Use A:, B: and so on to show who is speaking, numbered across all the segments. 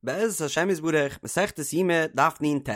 A: בעזרת השם יתברך, מסכת יומא, דף נ"ט.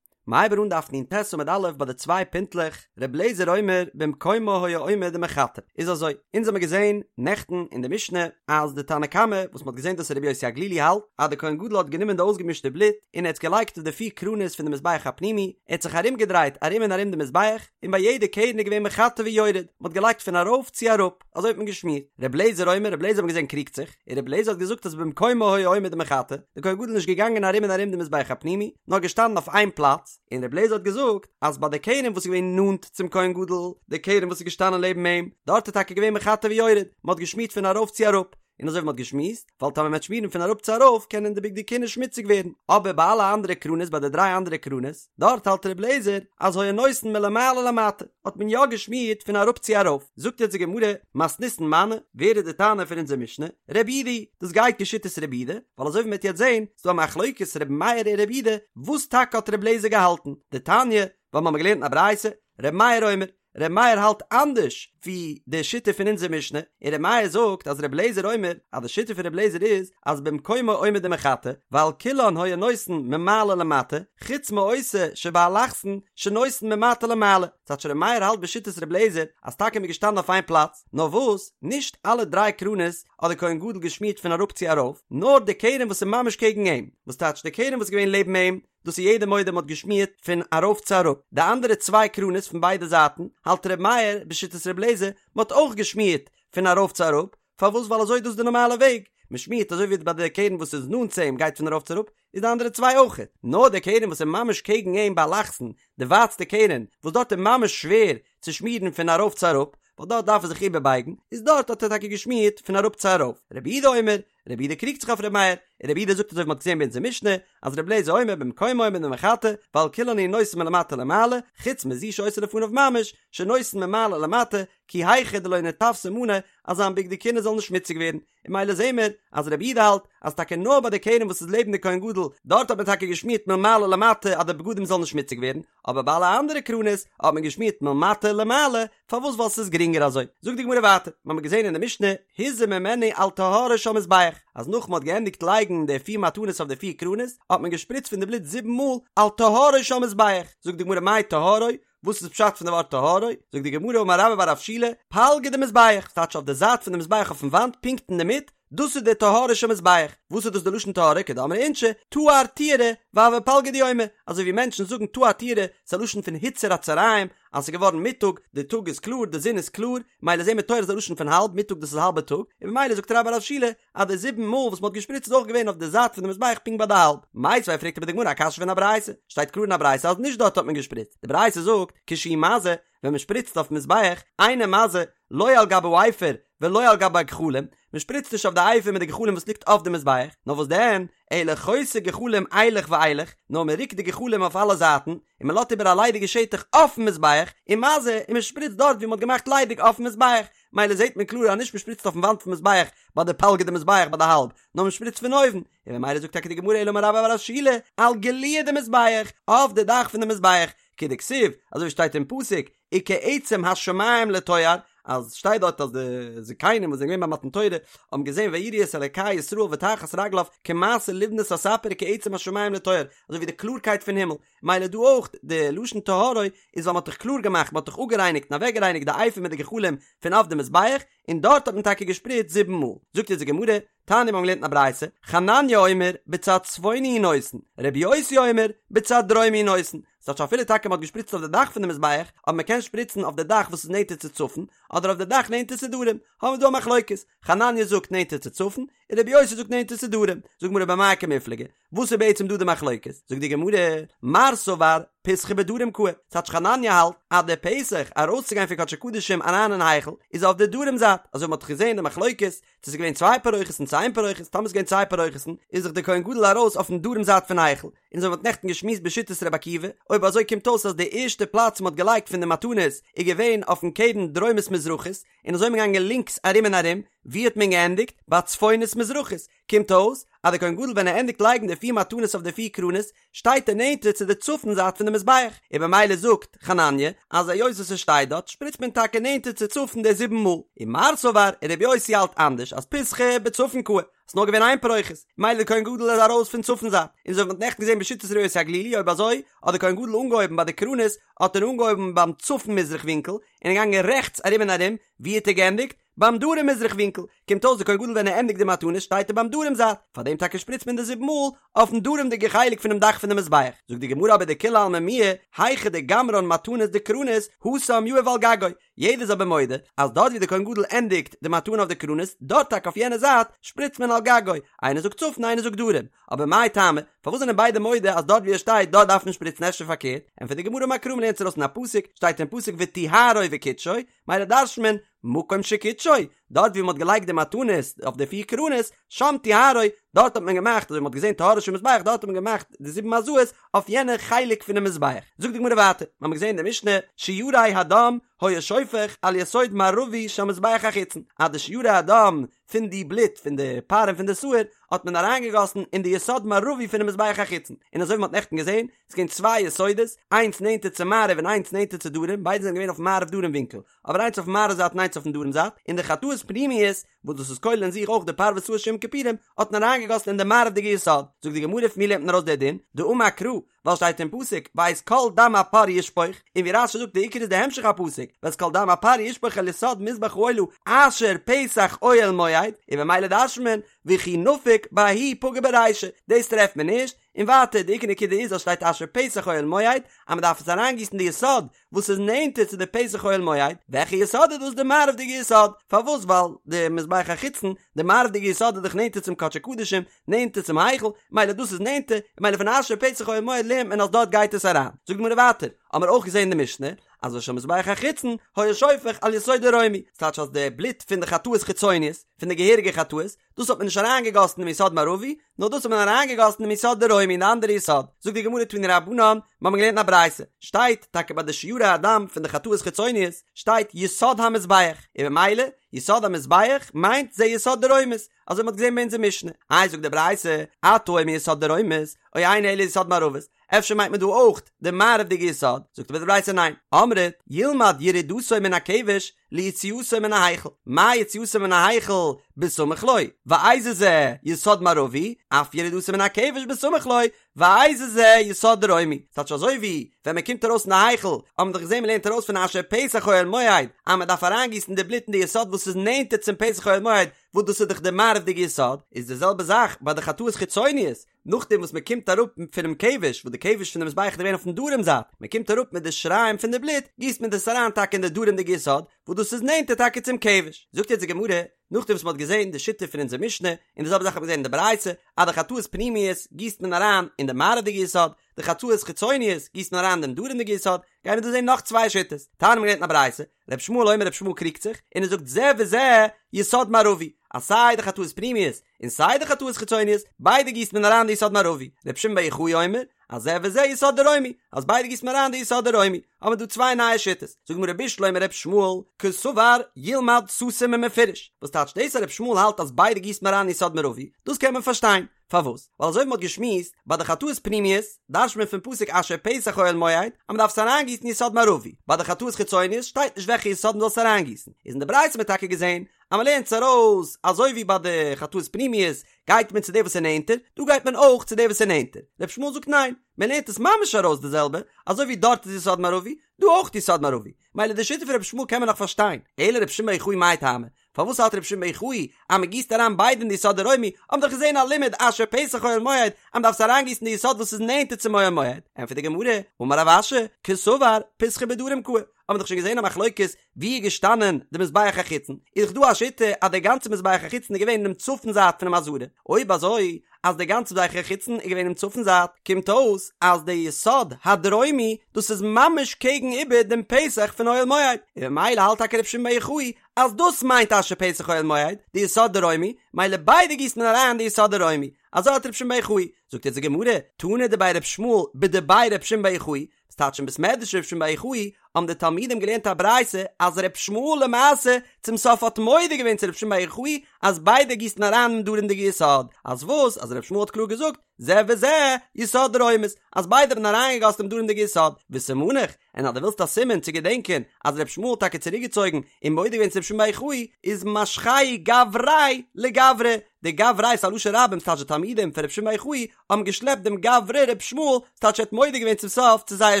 A: מ'הייבט אן דף נ"ט עמוד א' ביי די צוויי פינטלעך, ר' לעזער אומר במקומו היה עומד ומחטא. איז אזוי, אונז האמיר געזען נעכטן אין די משנה אז די תנא קמא וואס מ'האט געזען דאס רבי יוסי הגלילי האלט אז די כהן גדול האט גענומען די אויסגעמישטע בלוט און ער האט עס געלייגט אויף די פיר קרנות פון די מזבח הפנימי, ער האט זיך ארומגעדרייט ארום און ארום די מזבח, און ביי יעדע קרן איז געווען מחטא ויורד, מ'האט געלייגט פון ארויף צו אראפ. אזוי האט מען געשמירט. ר' לעזער אומר, ר' לעזער האט מען געזען קריגט זיך, און ר' לעזער האט געזאגט אז במקומו היה עומד ומחטא, די כהן גדול איז נישט געגאנגען ארום און ארום די מזבח הפנימי, נאר געשטאנען אויף איין פלאץ, און ר' לעזער האט געזאגט אז ביי די קרן וואס איז געווען נאנט צום כהן גדול, די קרן וואס איז געשטאנען לעבן אים, דארט איז טאקע געווען מחטא ויורד, מען האט געשמירט פון ארויף צו אראפ, און אזוי ווי מען האט געשמועסט, ווייל טאמער מען וועט שמירן פון אראפ צו ארויף קענען די בגדי כהונה שמוציג ווערן, אבער ביי אלע אנדערע קרנות ביי די דריי אנדערע קרנות, דארט האלט ר' לעזער אז היה נותן מלמעלה למטה, האט מען יא געשמירט פון אראפ צו ארויף, זאגט יעצט די גמרא, מתניתין מני, ווער איז די תנא פון אונזער משנה? רבי יהודה, דאס גייט כשיטת רבי יהודה, ווייל אזוי ווי מען וועט יעצט זען, איז דא א מחלוקת רבי מאיר און רבי יהודה, וואס טאקע האט רבי לעזער געהאלטן? דתניא, ווייל מ'האמיר געלערנט אין א ברייתא, רבי מאיר אומר, ר' מאיר האלט אנדערש ווי די שיטה פון אונזער משנה, און ר' מאיר זאגט אז ר' לעזער אומר אז די שיטה פון ר' לעזער איז אז במקומו עומד ומחטא, ועל כולן היה נותן ממעלה למטה, חוץ מאותה שבאלכסון שנותן ממטה למעלה, ס'טייטש ר' מאיר האלט בשיטת ר' לעזער אז טאקע מ'איז געשטאנען אויף איין פלאץ, נאר וואס, נישט אלע דריי קרנות האט די כהן גדול געשמירט פון אראפ צו ארויף, נאר די קרן וואס איז ממש קעגן אים, וואס טייטש די קרן וואס איז געווען לעבן אים, דאס איז יעדער מודה מ'האט געשמירט פון ארויף צו אראפ, די אנדערע צוויי קרנות פון ביידע זייטן האלט ר' מאיר בשיטת ר' לעזער מ'האט אויך געשמירט פון ארויף צו אראפ, פארוואס ווייל אזוי איז דאס די נארמאלע וועג, מ'שמירט אזוי ווי ביי די קרן וואס איז נאנט צו אים גייט פון ארויף צו אראפ, איז די אנדערע צוויי אויכעט, נאר די קרן וואס איז ממש קעגן אים באלכסון, די ווייטסטע קרן, וואס דארט איז ממש שווער צו שמירן פון ארויף צו אראפ, ווייל דארט דארף ער זיך איבערבייגן, איז דארט האט ער טאקע געשמירט פון אראפ צו ארויף, רבי יהודה אומר, רבי יהודה קריגט זיך אויף רבי מאיר, און רבי יהודה זאגט אזוי ווי מ'האט געזען ביי אונזער משנה, אז רבי אליעזר אומר במקומו עומד ומחטא, ועל כולן הוא נותן מלמטה למעלה, חוץ מזו שהיתה לפניו ממש, שנותן ממעלה למטה, כי היכי דלא ניתווסי מאני, אז זיין בגדי כהונה זאל נישט שמוציג ווערן. און ממילא זעהן מיר אז רבי יהודה האלט אז טאקע נאר ביי די קרן וואס איז לעבן די כהן גדול, דארט האט מען טאקע געשמירט מלמעלה למטה אז די בגדים זאלן נישט שמוציג ווערן, אבער ביי אלע אנדערע קרנות האט מען געשמירט מלמטה למעלה, פארוואס ווייל ס'איז גרינגער אזוי. זאגט די גמרא ווייטער, מ'האמיר געזען אין די משנה, הזה ממנו על טהרו של מזבח, אז נאך מ'האט געענדיגט לייגן די פיר מתנות אויף די פיר קרנות, האט מען געשפריצט פון די בלוט זיבן מאל על טהרו של מזבח, זאגט די גמרא מאי טהרו, וואס איז פשט פון די ווארט טהרו, זאגט די גמרא אמר רבה בר רב שילא, פלגא דמזבח, ס'טייטש אויף די זייט פון די מזבח אויפן וואנט פונקט אינדערמיט, דאס איז די טהרו של מזבח, וואס איז דאס די לשון טהרו כדאמרי אינשי, טהר טיהרא, והוי פלגא דיומא, אזוי ווי מענטשן זאגן טהר טיהרא, ס'איז א לשון פון הוצר הצהריים, אז ס'איז געווארן מיטאג, די טאג איז קלאר, די זון איז קלאר, מילא זעהן מיר טוהר איז א לשון פון האלב, מיטאג דאס איז האלבע טאג, און ממילא זאגט רבה בר רב שילא, אז די זיבן מאל וואס מ'האט געשפריצט איז אויך געווען אויף די זייט פון די מזבח פונקט ביי די האלב. מיתיבי פרעגט אבער די גמרא א קשיא פון א ברייתא, שטייט קלאר אין א ברייתא אז נישט דארט האט מען געשפריצט, די ברייתא זאגט, כשהוא מזה, ווען מ'שפריצט אויפן מזבח, אינו מזה, לא על גבי האפר ולא על גבי הגחלים, מ'שפריצט נישט אויף די אפר מיט די גחלים וואס ליגט אויף די מזבח, נאר וואס דען, אלא חותה גחלים אילך ואילך, נאר מ'רוקט די גחלים אויף אלע זייטן, און מ'לאזט איבער א ליידיגע שטח אויפן מזבח, ומזה, און מ'שפריצט דארט ווי מ'האט געמאכט ליידיג אויפן מזבח, מילא זעט מען קלאר אז נישט מ'שפריצט אויפן וואנט פון מזבח ביי די פלגא דמזבח ביי די האלב, נאר מ'שפריצט פון אויבן, און ממילא זאגט טאקע די גמרא אלא אמר רבה בר רב שילא, על גלויי דמזבח, אויף די דאך פון די מזבח, כדכתיב, אזוי ווי שטייט אין פסוק, וכעצם השמים לטוהר, אז שטייט דארט אז די זקנים וואס זענען געווען ביי מתן תורה האבן געזען ויראו את אלקי ישראל ותחת רגליו כמעשה לבנת הספיר וכעצם השמים לטוהר, אזוי ווי די קלארקייט פון הימל, מילא דא אויך די לשון טהרו איז ווייל מען האט דאך קלאר געמאכט, מען האט דאך אפגערייניגט און אוועקגערייניגט די אפר מיט די גחלים פון אויף די מזבח, און דארט האט מען טאקע געשפריצט זיבן מאל. זאגט אונז די גמרא, תניא מיר האבן געלערנט אין א ברייתא, חנניה אומר, בצד צפוני הוא נותן, רבי יוסי אומר, בצד דרומי הוא נותן. ס'טייטש אפילו טאקע מ'האט געשפריצט אויף די דאך פון די מזבח, אבער מ'קען שפריצן אויף די דאך וואס איז נענטער צו צפון, אדער אויף די דאך נענטער צו דרום. האבן מיר דא א מחלוקת, חנניה זאגט נענטער צו צפון, און רבי יוסי זאגט נענטער צו דרום. זאגט די גמרא במאי קמיפלגי, וואס איז בעצם דא די מחלוקת? זאגט די גמרא, מר סבר פיתחא בדרום קאי, ס'טייטש חנניה האלט אז די פתח ארויסצוגיין פון קדשי קדשים אריין אין היכל איז אויף די דרום זייט, אזוי ווי מ'האט דאך געזען די מחלוקת צו ס'איז געווען צוויי פרוכת'ן צו איין פרוכת, טאמער ס'איז געווען צוויי פרוכת'ן איז דאך די כהן גדול ארויס אויפן דרום זייט פון היכל, און אזוי ווי מ'האט נעכטן געשמועסט בשיטת רבי עקיבא, אויב אזוי קומט אויס אז די ערשטע פלאץ מ'האט געלייגט פון די מתנות איז געווען אויפן קרן דרומית מזרחית, און אזוי איז מען געגאנגען לינקס ארום און ארום, ווי האט מען געענדיגט? ביי צפונית מזרחית, קומט אויס. אז דער כהן גדול ווען ער ענדיגט לייגן די פיר מתנות אויף די פיר קרנות, שטייט ער נענטער צו די צפון זייט פון די מזבח, און במילא זאגט חנניה אז היות וואס ער שטייט דארט שפריצט מען טאקע נענטער צו צפון די זיבן מאל, און מר סבר און רבי יוסי האלט אנדערש אז פסחא בצפון קאי, ס'איז נאר געווען איין פרוכת, מילא דער כהן גדול איז ארויס פון צפון זייט, און אזוי ווי מ'האט נעכטן געזען בשיטת רבי יוסי הגלילי אויב אזוי האט דער כהן גדול אנגעהויבן ביי די קרנות האט ער אנגעהויבן ביים צפון מזרח ווינקל און איז געגאנגען רעכטס ארום און ארום, ווי האט ער געענדיגט? ביים דרום מזרח ווינקל, קומט אויס די כהן גדול ווען ער ענדיגט די מתנות שטייט ער ביים דרום זייט, פאר דעם טאקע שפריצט מען די זיבן מאל אויפן דרומ'דיגע חלק פונעם דאך פון די מזבח, זאגט די גמרא אבער דכולי עלמא מיהא היכא דגמרן מתנות דקרנות התם יהיב על גגו, יעדער איז אבער מודה אז דארט ווי די כהן גדול ענדיגט די מתנה אויף די קרנות דארט טאקע אויף יענע זייט שפריצט מען על גגו, איינער זאגט צפון איינער זאגט דרום, אבער מאי טעמא, פארוואס זענען ביידע מודה אז דארט ווי ער שטייט דארט דארף מען שפריצן אפשר פארקערט, ענטפערט די גמרא אמר קרא מ'לערנט עס ארויס אין א פסוק, שטייט אין פסוק וטהרו וקדשו, מילא דרש'נט מען, מקום שקידשו, דארט ווי מ'האט געלייגט די מתנות אויף די פיר קרנות, שם טהרו, דארט האט מען געמאכט, אזוי ווי מ'האט געזען טהרו של מזבח, דארט האט מען געמאכט די זיבן הזאות אויף יענע חלק פונעם מזבח. זאגט די גמרא ווייטער, מ'האמיר געזען אין די משנה, שיירי הדם היה שופך על יסוד מערבי של מזבח החיצון, אז די שיירי הדם פון די בלוט פון די פר און פון די שעיר האט מען אריינגעגאסן אין די יסוד מערבי פונעם מזבח החיצון, און אזוי ווי מ'האט נעכטן געזען, ס'איז געווען צוויי יסודות, איינס נענטער צו מערב און איינס נענטער צו דרום, ביידע זענען געווען אויפן מערב דרום ווינקל, אבער איינס אויפן מערב זייט און איינס אויפן דרום זייט, און די חטאות פנימיות, וואס דאס איז כולל אין זיך אויך די פר ושעיר של יום כיפורים, האט מען אריינגעגאסן אין די מערב'דיגע יסוד. זאגט די גמרא פון ווי לערנט מען ארויס די דין? דאמר קרא, ווייל שטייט אין פסוק ואת כל דם הפר ישפוך, און ווי רש"י זאגט די עיקר איז די המשך הפסוק, ואת כל דם הפר ישפוך אל יסוד מזבח העולה אשר פתח אוהל מועד, און במילא דרש'נט מען וכי נפיק בההיא פגע ברישא, דאס טרעפט מען נישט, און ווייטער די עיקר נקודה איז אז שטייט אשר פתח אוהל מועד אז מען דארף עס אריינגיסן די יסוד וואס איז נענטער צו די פתח אוהל מועד, וועלכע יסוד איז דאס די מערב'דיגע יסוד, פארוואס ווייל די מזבח החיצון די מערב'דיגע יסוד איז דאך נענטער צום קדשי קדשים, נענטער צום היכל, מילא דאס איז נענטער, מילא פון אשר פתח אוהל מועד לערנט מען אז דארט גייט עס אריין. זאגט די גמרא ווייטער, האמער אויך געזען אין די משנה, אז ושל מזבח החיצון היה שופך על יסוד דרומי, ס'טייטש אז די בלוט פון די חטאות חיצוניות, פון די געהעריגע חטאות, דאס האט מען נישט אריינגעגאסן אינעם יסוד מערבי, נאר דאס האט מען אריינגעגאסן אינעם יסוד דרומי אין די אנדערע יסוד. זאגט די גמרא תנו רבנן, מיר האבן געלערנט אין א ברייתא, שטייט טאקע ביי די שיירי הדם פון די חטאות חיצוניות, שטייט יסוד המזבח, און במילא, יסוד המזבח מיינט זה יסוד דרומית, אזוי מ'האט געזען ביי אונזער משנה. איי זאגט די ברייתא, אתה אומר יסוד דרומית, או אינו אלא יסוד מערבית, אפשר מיינט מען דא אויך די מערב'דיגע יסוד, זאגט אבער די ברייתא ניין, אמרת, ילמד ירידתו מן הכבש ליציאתו מן ההיכל, מה יציאתו מן ההיכל בסמוך לו, ואיזה זה יסוד מערבי, אף ירידתו מן הכבש בסמוך לו, ואיזה זה יסוד דרומי, ס'טייטש אזוי ווי ווען מען קומט ארויס פון די היכל, האט מען דאך געזען מען לערנט ארויס פון אשר פתח אוהל מועד, אז מען דארף אריינגיסן די בלוט אין די יסוד וואס איז נענטער צום פתח אוהל מועד, וואס דאס איז דאך די מערב'דיגע יסוד, איז די זעלבע זאך ביי די חטאות חיצוניות, נאכדעם וואס מען קומט אראפ פונעם כבש, וואס די כבש פון די מזבח איז געווען אויפן דרום זייט, מען קומט אראפ מיט די שיריים פון די בלוט, גיסט מען דאס אריין טאקע אין די דרומ'דיגע יסוד, וואס דאס איז נענטער טאקע צום כבש. זאגט יעצט די גמרא, נאכדעם וואס מען האט געזען די שיטה פון אונזער משנה, און די זעלבע זאך האט מען געזען אין די ברייתא, אז די חטאות פנימיות גיסט מען אריין אין די מערב'דיגע יסוד, די חטאות חיצוניות גיסט מען אריין אין דעם דרומ'דיגע יסוד, גייען מיר דא זען נאך צוויי שיטות. תניא מ'האט געלערנט אין א ברייתא, ר' ישמעאל אומר ר' ישמעאל קריגט זיך, און ער זאגט זה וזה יסוד מערבי, אז סיי די חטאות פנימיות און סיי די חטאות חיצוניות, ביידע גיסט מען אריין די יסוד מערבי. ר' שמעון בר יוחאי אומר, אז זה וזה יסוד דרומי, אז ביידע גיסט מען אריין די יסוד דרומי, האבן מיר דא צוויי נייע שיטות, זאגט די גמרא בשלמא ר' ישמעאל, קסבר ילמד סתום ומפורש, וואס טייטש דאס אז ר' ישמעאל האלט אז ביידע גיסט מען אריין יסוד מערבי, דאס קען מען פארשטיין, פארוואס? ווייל אזוי ווי מען האט געשמועסט, ביי די חטאות פנימיות, דרש'ט מען פון פסוק אשר פתח אוהל מועד, אז מען דארף עס אריינגיסן יסוד מערבי, ביי די חטאות חיצוניות שטייט נישט וועלכע יסוד מען זאל עס אריינגיסן, איז אין די ברייתא האט מען טאקע געזען אז מען לערנט עס ארויס אזוי ווי ביי די חטאות פנימיות גייט מען צו די וואס איז נענטער, דא גייט מען אויך צו די וואס איז נענטער. ר' ישמעאל זאגט ניין, מען לערנט עס ממש ארויס די זעלבע, אזוי ווי דארט איז יסוד מערבי, דא אויך יסוד מערבי. מילא די שיטה פון ר' ישמעאל קען מען נאך פארשטיין, אלא ר' שמעון בר יוחאי מאי טעמא, פארוואס האלט ר' שמעון בר יוחאי אז מען גיסט אריין ביידע אין די יסוד דרומי, האבן דאך געזען א לימוד אשר פתח אוהל מועד אז מען דארף עס אריינגיסן די יסוד וואס איז נענטער צום אוהל מועד, ענטפערט די גמרא, אמר רב אשי, קסבר פתחא בדרום קאי, האבן מיר דאך שוין געזען א מחלוקת ווי איז געשטאנען די מזבח החיצון, איז דאך דא א שיטה אז דער גאנצער מזבח החיצון איז געווען אינעם צפון זייט פונעם עזרה, אויב אזוי אז דער גאנצער מזבח החיצון איז געווען אינעם צפון זייט, קומט אויס אז דער יסוד הדרומי דאס איז ממש קעגן איבער דעם פתח פון אוהל מועד, און ממילא האלט טאקע רבי שמעון בר יוחאי אז דאס מיינט אשר פתח אוהל מועד, די יסוד דרומי, מילא ביידע גיסט מען אריין די יסוד דרומי. אזוי האלט רבי שמעון בר יוחאי. זאגט יעצט די גמרא, תנא דבי ר' ישמעאל בדבי ר' שמעון בר יוחאי, וואס טייטש אין בית מדרש ר' שמעון בר יוחאי האבן די תלמידים געלערנט א ברייתא אז ר' ישמעאל למעשה צום סוף האט מודה געווען צו ר' שמעון בר יוחאי אז ביידע גיסן אריין אין דרומ'דיגע יסוד, אז וואס? אז ר' ישמעאל האט קלאר געזאגט זה וזה יסוד דרומית, אז ביידע האבן אריינגעגאסן דעם דרומ'דיגע יסוד, וסימניך, און אז דו ווילסט א סימן צו געדענקען אז ר' ישמעאל האט טאקע צוריקגעצויגן און מודה געווען צו ר' שמעון בר יוחאי, איז משכיה גבריה לגברא, די גבריה איז א לשון רבים ס'טייטש די תלמידים פון ר' שמעון בר יוחאי האבן געשלעפט דעם גברא ר' ישמעאל, ס'טייטש ער האט מודה געווען צום סוף צו זייער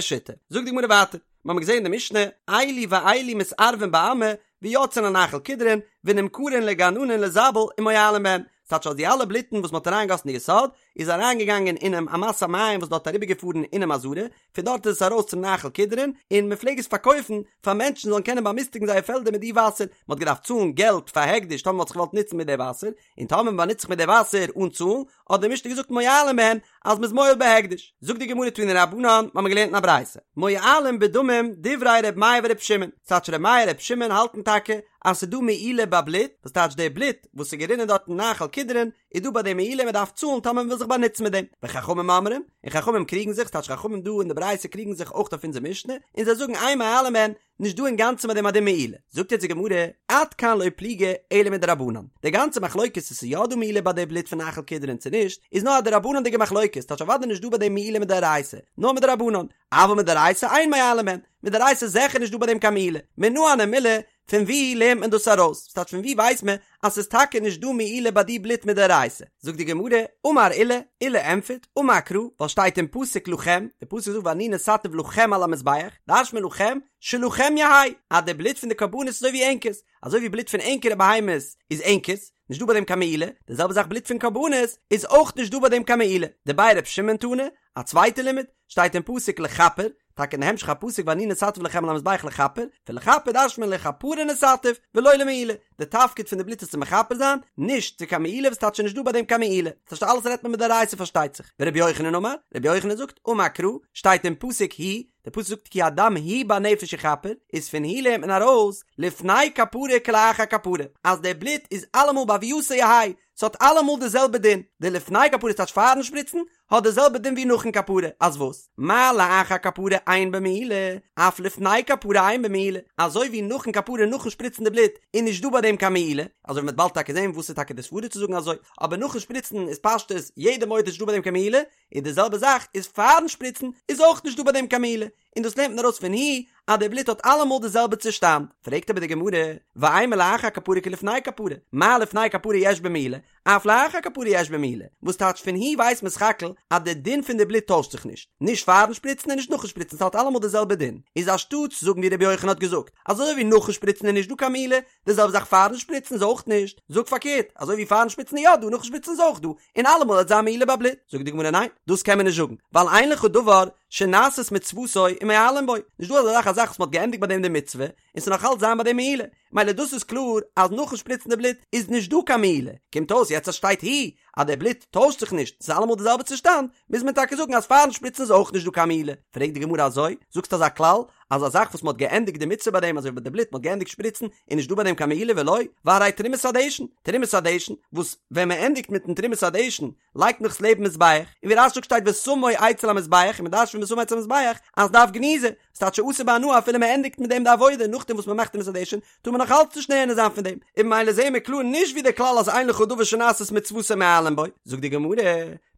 A: שיטה. זאגט די גמרא ווייטער, מיר האבן געזען אין די משנה, אלו ואלו מתערבין בעמה ויוצאין לנחל קדרון ונמכרין לגננין לזבל ומועלין בהן, ס'טייטש אז די אלע בלוטן וואס מ'האט אריינגעגאסן אין די יסוד איז אריינגעגאנגען אינעם אמת המים וואס דארט אריבערגעפארן אינעם עזרה, פון דארט איז עס ארויס צום נחל קדרון, און מען פלעג עס פארקויפן פאר מענטשן זאלן קענען באמיסטיגן זייער פעלדער מיט די וואסער, מען האט געדארפט צאלן געלט פאר הקדש טאמער מען האט זיך געוואלט נוצן מיט די וואסער, און טאמער מען באנוצט זיך מיט די וואסער אן צאלן, האט די משנה געזאגט מועלין בהן אז מען איז מועל בהקדש. זאגט די גמרא תנו רבנן, מיר האבן געלערנט אין א ברייתא, מועלין בדמים דברי ר' מאיר ור' שמעון, ס'טייטש ר' מאיר ר' שמעון האלטן טאקע אז ס'איז דא מעילה ביי בלוט, וואס טייטש די בלוט וואס איז גערינען דארט אין נחל קדרון, איז דא ביי דעם מעילה מען דארף צאלן טאמער מען וויל זיך באנוצן מיט דעם, וחכמים אומרים, און חכמים קריגן זיך, ס'טייטש חכמים דא אין די ברייתא קריגן זיך אויך אויף אונזער משנה, און זיי זאגן אין מועלין בהן, נישט דא אינגאנצן ביי דעם א דין מעילה. זאגט יעצט די גמרא, עד כאן לא פליגי אלא מדרבנן, די גאנצע מחלוקת צו ס'איז יא דא מעילה ביי די בלוט פון נחל קדרון צו נישט, איז נאר א דרבנן'דיגע מחלוקת, ס'טייטש אוודאי נישט דא ביי דעם מעילה מדאורייתא, נאר מדרבנן, אבל מדאורייתא אין מועלין בהן, מדאורייתא איז זיכער נישט דא ביי דעם קיין מעילה, מנא הני מילי, פון ווי לערנט מען דאס ארויס? ס'טייטש פון ווי ווייסט מען אז ס'איז טאקע נישט דא מעילה ביי די בלוט מדאורייתא? זאגט די גמרא, אמר עולא, עולא ענטפערט, אמר קרא, ווייל שטייט אין פסוק לכם, די פסוק זאגט ואני נתתיו לכם על המזבח, דרש'ט מען לכם, שלכם יהא, אז די בלוט פון די קרבנות איז אזוי ווי ענקערס, אזוי ווי בלוט פון ענקערע בהמות איז ענקערס, נישט דא ביי דעם קיין מעילה, די זעלבע זאך בלוט פון קרבנות איז אויך נישט דא ביי דעם קיין מעילה. דבי ר' שמעון תנא, א צווייטע לימוד, שטייט אין פסוק לכפר, טאקע אין די המשך הפסוק ואני נתתיו לכם על המזבח לכפר, פון לכפר דרש'ט מען לכפרה נתתיו ולא למעילה, די תפקיד פון די בלוט איז צו מכפר זיין, נישט צו קיין מעילה וואס טייטש נישט דא ביי דעם קיין מעילה, ס'טייטש אלעס רעדט מען מדאורייתא פארשטייט זיך, ורבי יוחנן אמר, רבי יוחנן זאגט, אמר קרא, שטייט אין פסוק הוא, די פסוק זאגט כי הדם הוא בנפש יכפר, איז פון הוא לערנט מען ארויס, לפני כפרה כלאחר כפרה, אז די בלוט איז אלעמאל בהוייתו יהא, ס'האט אלעמאל די זעלבע דין, די לפני כפרה טייטש פארן שפריצן, האט די זעלבע דין ווי נאכן כפרה, אז וואס? מה לאחר כפרה אין בו מעילה, אף לפני כפרה אין בו מעילה, אזוי ווי נאכן כפרה נאכן שפריצן די בלוט איז נישט דא ביי דעם קיין מעילה, אזוי ווי מ'וועט באלד טאקע זען וואס איז טאקע די סברא צו זאגן אזוי, אבער נאכן שפריצן איז פשטות יעדער מודה נישט דא ביי דעם קיין מעילה, און די זעלבע זאך איז פארן שפריצן איז אויך נישט דא ביי דעם קיין מעילה, און דאס לערנט מען ארויס פון הוא אז די בלוט האט אלעמאל די זעלבע צושטאנד, פרעגט אבער די גמרא, ואימא לאחר כפרה כלפני כפרה, מה לפני כפרה יש בו מעילה, אף לאחר כפרה יש בו מעילה, וואס טייטש פון הוא ווייסט מען סך הכל אז די דין פון די בלוט טוישט זיך נישט, נישט פארן שפריצן און נישט נאכן שפריצן ס'האט אלעמאל די זעלבע דין, איז אנשטאטס זאגן ווי רבי יוחנן האט געזאגט, אזוי ווי נאכן שפריצן איז נישט דא קיין מעילה, די זעלבע זאך פארן שפריצן איז אויך נישט, זאג פארקערט, אזוי ווי פארן שפריצן איז יא דא נאכן שפריצן איז אויך דא, און אלעמאל וועט זיין מעילה ביי בלוט, זאגט די גמרא ניין, דאס קען מען נישט זאגן, ווייל אין לך דבר שנעשית מצוותו ומועלין בו, נישט דא אזא זאך א זאך וואס מען האט געענדיגט ביי דעם די מצוה, און ס'זאל נאך אלץ זיין ביי דעם מעילה, מילא דאס איז קלאר אז נאכן שפריצן די בלוט איז נישט דא קיין מעילה, קומט אויס יעצט אז שטייט הוא אז די בלוט טוישט זיך נישט, ס'איז אלעמאל די זעלבע צושטאנד, מוז מען טאקע זאגן אז פארן שפריצן איז אויך נישט דא קיין מעילה, פרעגט די גמרא אזוי, זאגסט אזא כלל אז א זאך וואס מען האט געענדיגט די מצוה ביי דעם אזוי ווי ביי די בלוט מען האט געענדיגט שפריצן איז נישט דא ביי דעם קיין מעילה ולא, והרי תרומת הדשן, תרומת הדשן, וואס ווען מען ענדיגט מיטן תרומת הדשן לייגט מען עס לעבן מזבח, און ווי רש"י זאגט שטייט ושמו אצל המזבח, און מען דרש'נט פון ושמו אצל המזבח אז דארף גניזה, ס'טייטש שאסור בהנאה אפילו מען ענדיגט מיט דעם די עבודה נאכדעם וואס מען מאכט תרומת הדשן טאר מען נאך אלץ נישט נהנה זיין פון דעם, און ממילא זעהן מיר קלאר נישט ווי די כלל אז אין לך דבר שנעשית מצוותו ומועלין בו, זאגט די גמרא,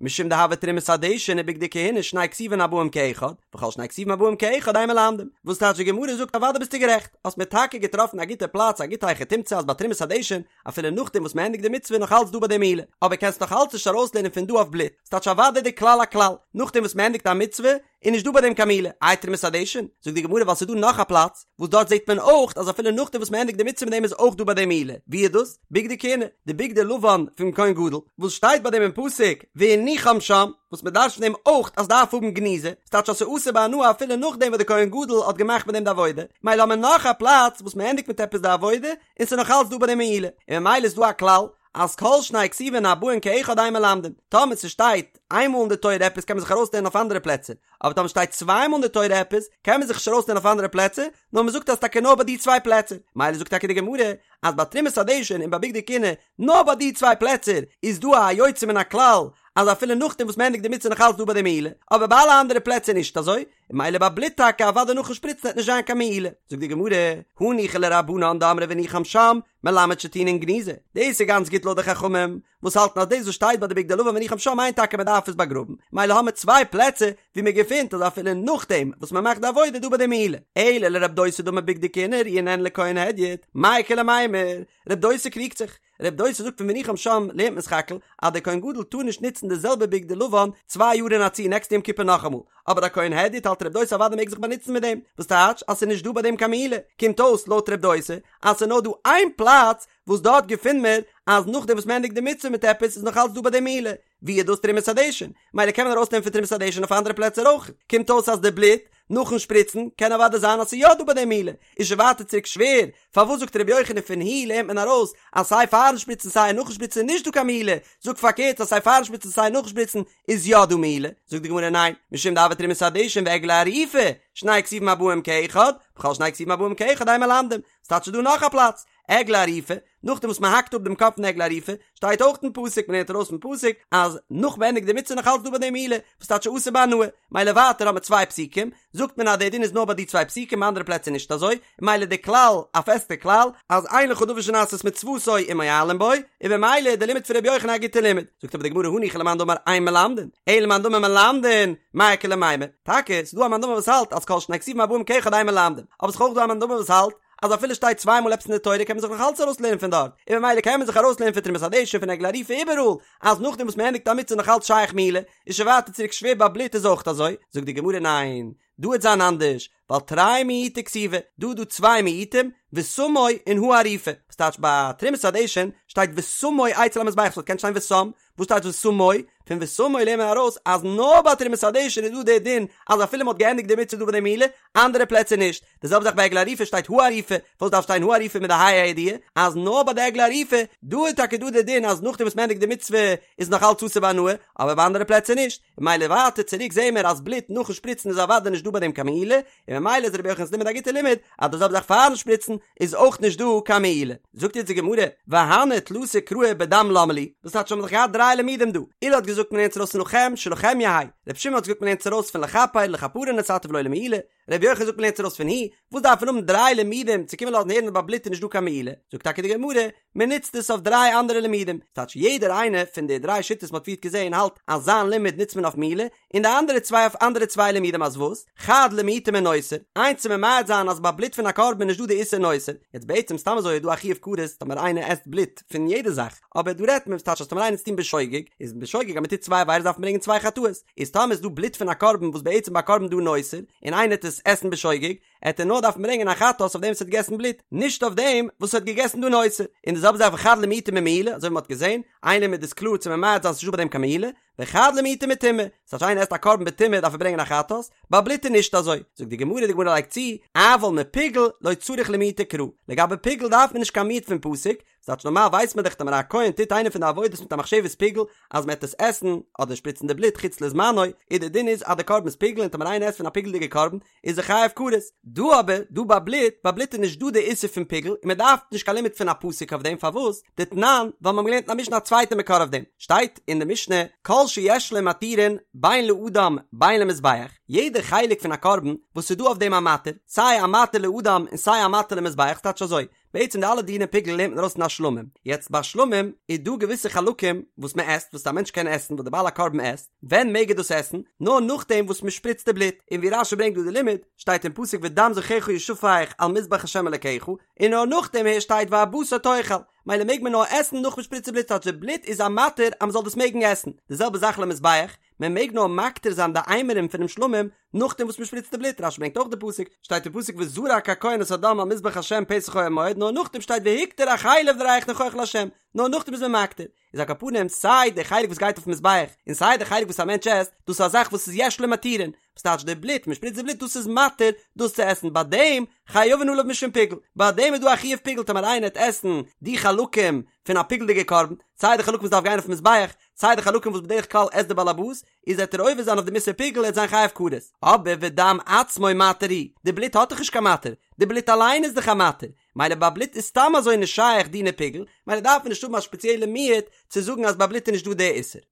A: משום דהוה תרומת הדשן ובגדי כהונה שני כתובים הבאים כאחד, וכל שני כתובים הבאים כאחד אין מלמדים, וואס טייטש די גמרא זאגט אוודאי ביסטו גערעכט, האסט מיר טאקע געטראפן א גוטע פלאץ א גוטע היכי תמצא אז ביי תרומת הדשן אפילו נאכדעם וואס מען ענדיגט די מצוה איז נאך אלץ דא ביי דעם מעילה, אבער קענסט נאך אלץ נישט ארויסלערנען פון דא אויף בלוט, ס'טייטש אוודאי די כלל א כלל, נאכדעם וואס מען ענדיגט א מצוה איז נישט דא ביי דעם קיין מעילה, איי תרומת הדשן? זאגט די גמרא ווייל ס'איז דא נאך א פלאץ וואס דארט זעט מען אויך אז אפילו נאכדעם וואס מען ענדיגט די מצוה מיט דעם איז אויך דא ביי דעם מעילה, ווי איז דאס? בגדי כהונה, די בגדי לבן פון כהן גדול, וואס שטייט ביי דעם אין פסוק והניחם שם, וואס מען דרש'נט פון דעם אויך אז דארף האבן גניזה, ס'טייטש אז ס'איז אסור בהנאה אפילו נאכדעם וואס די כהן גדול האט געמאכט מיט דעם די עבודה, מילא האט מען נאך א פלאץ וואס מען ענדיגט מיט עפעס די עבודה, און ס'איז נאך אלץ דא ביי דעם מעילה, און ממילא איז דא א כלל אז כל שני כתובים הבאין כאחד אין מלמדים, טאמער ס'שטייט איין מאל אין די תורה עפעס קען מען זיך ארויסלערנען אויף אנדערע פלעצער, אבער טאמער שטייט צוויי מאל אין די תורה עפעס קען מען זיך נישט ארויסלערנען אויף אנדערע פלעצער, נאר מ'זאגט אז טאקע נאר ביי די צוויי פלעצער, מילא זאגט טאקע די גמרא אז ביי תרומת הדשן און ביי בגדי כהונה נאר ביי די צוויי פלעצער איז דא א יוצא מן הכלל. אז אפילו נאכדעם וואס מ'ענדיגט די מצוה נאך אלץ דא ביי דעם מעילה, אבער ביי אלע אנדערע פלעצער נישט אזוי, און ממילא ביי בלוט טאקע אוודאי נאכן שפריצן וועט נישט זיין קיין מעילה. זאגט די גמרא, הניחא לרבנן דאמרי והניחם שם, מלמד שטעונין גניזה, דאס איז גאנץ גוט לויט די חכמים וואס האלטן אז דאס וואס שטייט ביי די בגדי לבן והניחם שם מיינט טאקע מען דארף עס באגראבן, ממילא האמער צוויי פלעצער ווי מען געפינט אז אפילו נאכדעם וואס מען מאכט די עבודה איז דא ביי דעם מעילה. אלא לרב דוסא דאמר בגדי כהונה ראויין הן לכהן הדיוט, מאי איכא למימר? רב דוסא קריגט זיך. רב דוסא זאגט פון והניחם שם לערנט מען סך הכל אז דער כהן גדול טאר נישט נוצן די זעלבע בגדי לבן צוויי יאר אין א צי נעקסטע יום כיפור נאכאמאל, אבער א כהן הדיוט האלט רב דוסא אוודאי מעג זיך באנוצן מיט דעם, וואס טייטש אז ס'איז נישט דא ביי דעם קיין מעילה, קומט אויס לויט רב דוסא אז ס'איז נאר דא איין פלאץ וואס דארט געפינט מען אז נאכדעם וואס מ'ענדיגט די מצוה מיט עפעס איז נאך אלץ דא ביי דעם מעילה, ווי איז דאס תרומת הדשן? מילא קען מען ארויסנעמען פון תרומת הדשן אויף אנדערע פלעצער אויך, קומט אויס אז די בלוט נאכן שפריצן קען אוודאי זיין אז ס'איז יא דא ביי דעם מעילה, איז שוין ווייטער צוריק שווער, פארוואס זאגט ר' יוחנן פון הוא לערנט מען ארויס אז סיי פארן שפריצן סיי נאכן שפריצן איז נישט דא קיין מעילה, זאג פארקערט אז סיי פארן שפריצן סיי נאכן שפריצן איז יא דא מעילה, זאגט די גמרא ניין, משום דהוה תרומת הדשן ועגלה ערופה, שני כתובים הבאים כאחד, וכל שני כתובים הבאים כאחד אין מלמדים, ס'טייטש ס'איז דא נאך א פלאץ, עגלה ערופה, נאכדעם וואס מ'האקט אפ דעם קאפ פון עגלה ערופה, שטייט אויך אין פסוק, מ'לערנט ארויס פון פסוק, אז נאך מ'ענדיגט די מצוה נאך אלץ דא ביי דעם מעילה, וואס טייטש אסור בהנאה, מילא ווייטער האט מען צוויי פסוקים, זאגט מען אז דער דין איז נאר ביי די צוויי פסוקים ביי אנדערע פלעצער נישט אזוי, מילא די כלל, א פעסטע כלל, אז אין לך דבר שנעשית מצוותו ומועלין בו, און במילא איז די לימוד פון רבי יוחנן א גוטע לימוד. זאגט אבער די גמרא הניחא למאן דאמר אין מלמדין, אלא למאן דאמר מלמדין, מאי איכא למימר, טאקע, ס'איז דא א מאן דאמר וואס האלט אז כל שני כתובים הבאים כאחד אין מלמדין, אבער ס'איז אויך דא א מאן דאמר וואס האלט אז אפילו שטייט צוויי מאל עפעס אין די תורה קען מען זיך נאך אלץ ארויסלערנען פון דארט, און ממילא קען מען זיך ארויסלערנען פון תרומת הדשן פון עגלה ערופה איבעראל, אז נאכדעם וואס מען ענדיגט א מצוה נאך אלץ שייך מעילה, איז שוין ווייטער צוריק שווער ביי בלוט איז אויך אזוי, זאגט די גמרא ניין, דא וועט זיין אנדערש, ווייל תרי מיעוטי כתיבי, דא איז דא צוויי מיעוטים, ושמו און הערופה, וואס טייטש ביי תרומת הדשן שטייט ושמו אצל המזבח, ס'וואלט געקענט שטיין ושם, וואס טייטש ושמו? פון ושמו לערנט מען ארויס אז נאר ביי תרומת הדשן איז דא דער דין אז אפילו מ'האט געענדיגט די מצוה דא ביי די מעילה, אנדערע פלעצער נישט. די זעלבע זאך ביי עגלה ערופה שטייט הערופה, וואס דארף שטיין הערופה מיט די ה' הידיעה? אז נאר ביי די עגלה ערופה, דא איז טאקע דא דער דין אז נאכדעם וואס מ'ענדיגט די מצוה איז נאך אלץ אסור בהנאה, אבער ביי אנדערע פלעצער נישט. ממילא ווייטער צוריק זעהן מיר אז בלוט נאכן שפריצן איז אוודאי נישט דא ביי דעם קיין מעילה, און ממילא איז רבי יוחנן'ס לימוד א גוטע לימוד אז די זעלבע זאך פארן שפריצן איז אויך נישט דא קיין מעילה. זאגט יעצט די גמרא, והני תלתא קראי בדם למה לי, וואס טייטש האבן מיר דאך געהאט דריי לימודים דא, עולא האט געזאגט מ'לערנט ארויס פון לכם שלכם יהא, רבי שמעון האט געזאגט מ'לערנט ארויס פון לכפר לכפרה נתתיו ולא למעילה, רבי יוחנן זאגט מ'לערנט ארויס פון הוא, וואס דארף מען האבן דריי לימודים צו קומען לאזן הערן אז ביי בלוט איז נישט דא קיין מעילה, זאגט טאקע די גמרא, מען נוצט עס אויף דריי אנדערע לימודים, ס'טייטש יעדער איינער פון די דריי שיטות מ'האט פריערט געזען האלט אז זיין לימוד נוצט מען אויף מעילה, און די אנדערע צוויי אויף אנדערע צוויי לימודים אז וואס? חד למעוטי מנותר, איינס צו ממעט זיין אז ביי בלוט פון א קרבן איז נישט דא די איסור נותר, יעצט בעצם סתם אזוי איז דא א חיוב כרת טאמער איינער עסט בלוט פון יעדע זאך, אבער דא רעדט מען ס'טייטש אז טאמער איינער עט עס טון בשוגג, איז בשוגג אז מ'טוט צוויי עבירות דארף מען ברענגען צוויי חטאות, איז טאמער איז דא בלוט פון א קרבן וואס בעצם ביי א קרבן דא נותר, און איינער עט עס עסן בשוגג, עט ער נאר דארפן ברענגען א חטאת אויף דעם וואס האט געגעסן בלוט, נישט אויף דעם וואס האט געגעסן דא נותר. און די זעלבע זאך וחד למעוטי ממעילה, אזוי ווי מ'האט געזען, איין לימוד איז קלאר צו ממעט זיין ס'נישט דא ביי דעם קיין מעילה, וחד למעוטי מטומאה, ס'טייטש איינער עסט א קרבן בטומאה דארף ער ברענגען א חטאת, ביי בלוט איז נישט אזוי. זאגט די גמרא, די גמרא לייגט צו, אבל מפיגול לא צריך למעוטי קרא, לגבי פיגול דארף מען נישט קיין מיעוט פון פסוק, ס'טייטש נארמאל ווייסט מען דאך טאמער א כהן טוט איינע פון די עבודות מיט א מחשבת פיגול אז מ'עט עס עסן אדער שפריצן די בלוט חוץ לזמנו, איז די דין איז אז די קרבן איז פיגול און טאמער איינער עסט פון א פיגול'דיגע קרבן איז ער חייב כרת. דא אבער, דא ביי בלוט, ביי בלוט איז נישט דא די איסור פון פיגול און מען דארף נישט קיין לימוד פון א פסוק אויף דעם, פארוואס? דתנן, ווייל מיר האבן געלערנט אין א משנה א צווייטע מקור אויף דעם, שטייט אין די משנה כל שיש לו מתירין בין לאדם בין למזבח, יעדע חלק פון א קרבן וואס איז דא אויף דעם א מתיר, סיי א מתיר לאדם און סיי א מתיר למזבח, ס'טייטש אזוי, בעצם די אלע דיני פיגול לערנט מען ארויס פון א שלמים, יעצט ביי שלמים איז דא געוויסע חלקים וואס מען עסט וואס א מענטש קען עסן וואס די בעל הקרבן עסט, ווען מעג ער דאס עסן? נאר נאכדעם וואס מען שפריצט די בלוט, און ווי רש"י ברענגט דא די לימוד, שטייט אין פסוק ודם זבחיך ישפך על מזבח ה' אלקיך, און נאר נאכדעם הערשט שטייט והבשר תאכל, מילא מעג מען נאר עסן נאך מען שפריצט די בלוט טייטש די בלוט איז א מתיר אז מען זאל דאס מעגן עסן, די זעלבע זאך למזבח, מען מעג נאר מקטיר זיין די אימורים פונעם שלמים נאכדעם וואס מען שפריצט די בלוט, רש"י ברענגט אויך די פסוק, שטייט אין פסוק וזרק הכהן את הדם על מזבח ה' פתח אוהל מועד, נאר נאכדעם שטייט והקטיר החלב לריח ניחוח לה', נאר נאכדעם איז מען מקטיר, איז על כל פנים סיי די חלק וואס גייט אויפן מזבח און סיי די חלק וואס א מענטש עסט, דאס איז א זאך וואס איז יש לו מתירין, וואס טייטש די בלוט, מען שפריצט די בלוט דאס איז מתיר דאס צו עסן, ביי דעם חייבין עליו משום פיגול, ביי דעם איז דא א חיוב פיגול טאמער איינער העט עסן די חלקים פון א פיגול'דיגע קרבן, סיי די חלקים וואס דארף גיין אויפן מזבח, סיי די חלקים וואס בדרך כלל עסט די באלעבאס, איז וועט ער עובר זיין אויף דעם איסור פיגול ער וועט זיין חייב כרת. אבער ודם עצמו מתיר הוא, די בלוט האט דאך נישט קיין מתיר, די בלוט אליין איז דאך א מתיר, מילא ביי בלוט איז סתם אזוי נישט שייך דיני פיגול, מילא דארף מען נישט האבן א שפעציעלע מיעוט צו זאגן אז ביי בלוט איז נישט דא די איסור.